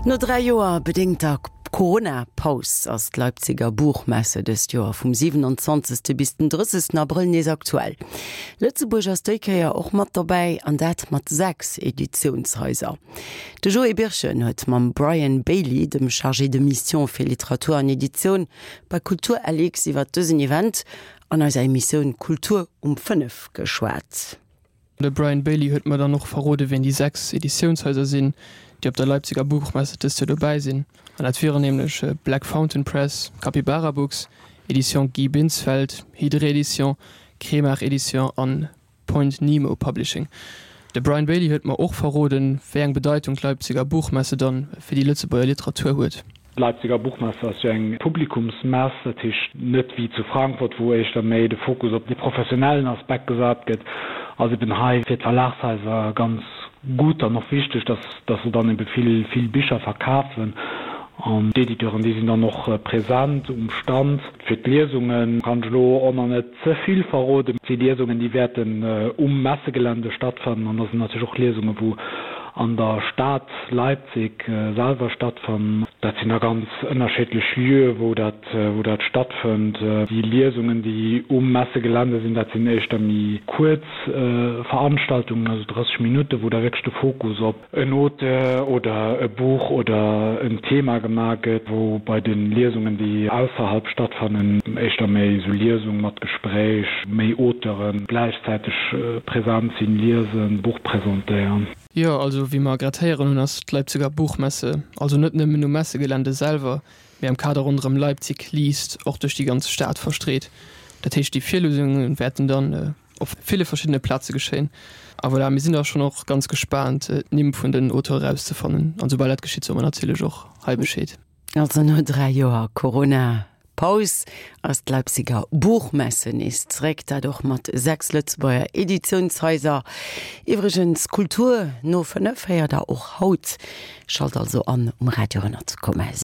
No 3 Joer bedéngter Corona-Paus ass d'Leipziger Buchmesse dëst Joer vum 27. bis den 30. Abrëll nees aktuell. Lëtzebuerg ass déi Kéier och mat dobäi, an dat mat 6 Editiounshaiser. De Joé Birchen huet mam Brian Bailey, dem Chargé de Mission fir Literatur an Editioun bei Kultur LX iwwer dësen Event an eiser Emissioun Kultur um 5 geschwat. De Brian Bailey huet mer dann och verrode wien déi 6 Editiounshaiser sinn, déi op der Leipziger Buchmesse dëst Joer dobäi sinn. An dat wieren nämlech Black Fountain Press, Capybara Books, Editions Guy Binsfeld, Hydre Edition, Kremart Edition an Point Nemo Publishing. De Brian Bailey huet mer och verroden, wéi eng Bedeitung d'Leipziger Buchmesse dann fir déi Lëtzebuerger Literatur huet. D'Leipziger Buchmesse ass jo eng Publikumsmess, dat heescht net wéi zu Frankfurt, wou éischter méi de Fokus op de professionellen Aspekt gesat gëtt, ass eben hei fir d'Verlagshaiser ganz gutt an och wichteg, dass dass se dann ebe vill vill Bicher verkafen. An d'Editeuren, déi sinn dann och present um Stand. Fir d'Liesungen kann ech elo och nach net ze vill verroden. Déi Liesungen, déi wäerten um Messegelände stattfannen an da sinn natierlech och Liesungen, wou an der Stad Leipzig selwer stattfannen. Dat sinn da ganz ënnerschiddlech Lieue, wou dat, wou dat stattfënnt. Déi Liesungen, déi um Messegelände sinn, dat sinn éischter méi kuerz Veranstaltungen, also 30 Minutten, wou da wierklech de Fokus op en Auteur oder e Buch oder en Thema gemaach gëtt, wou bei de Liesungen, déi ausserhalb stattfannen, éischter méi esou Liesung mat Gespréich, méi Auteure gläichzäiteg present sinn, liesen, Buch presentéieren. Jo, also wéi mer grad héieren hunn, ass d'Leipziger Buchmesse also net nëmmen um Messegelände selwer, mee am Kader ronderëm Leipzig liest och duerch déi ganz Stad verstreet. Dat heescht, déi Virliesunge wäerten dann op ville verschiddene Plaze geschéien. A voilà, mir sinn da schonn och ganz gespaant, d'Nimm vun den Auteure erauszefannen. An soubal dat geschitt, soe mer natierlech och hei Bescheed. Also no 3 Joer Corona-Paus ass d'Leipziger Buchmesse nees zeréck, dat och mat 6 Lëtzebuerger Editiounshaiser. Iwwregens, Kultur no 5 héiert der och haut. Schalt also an um Radio 100,7.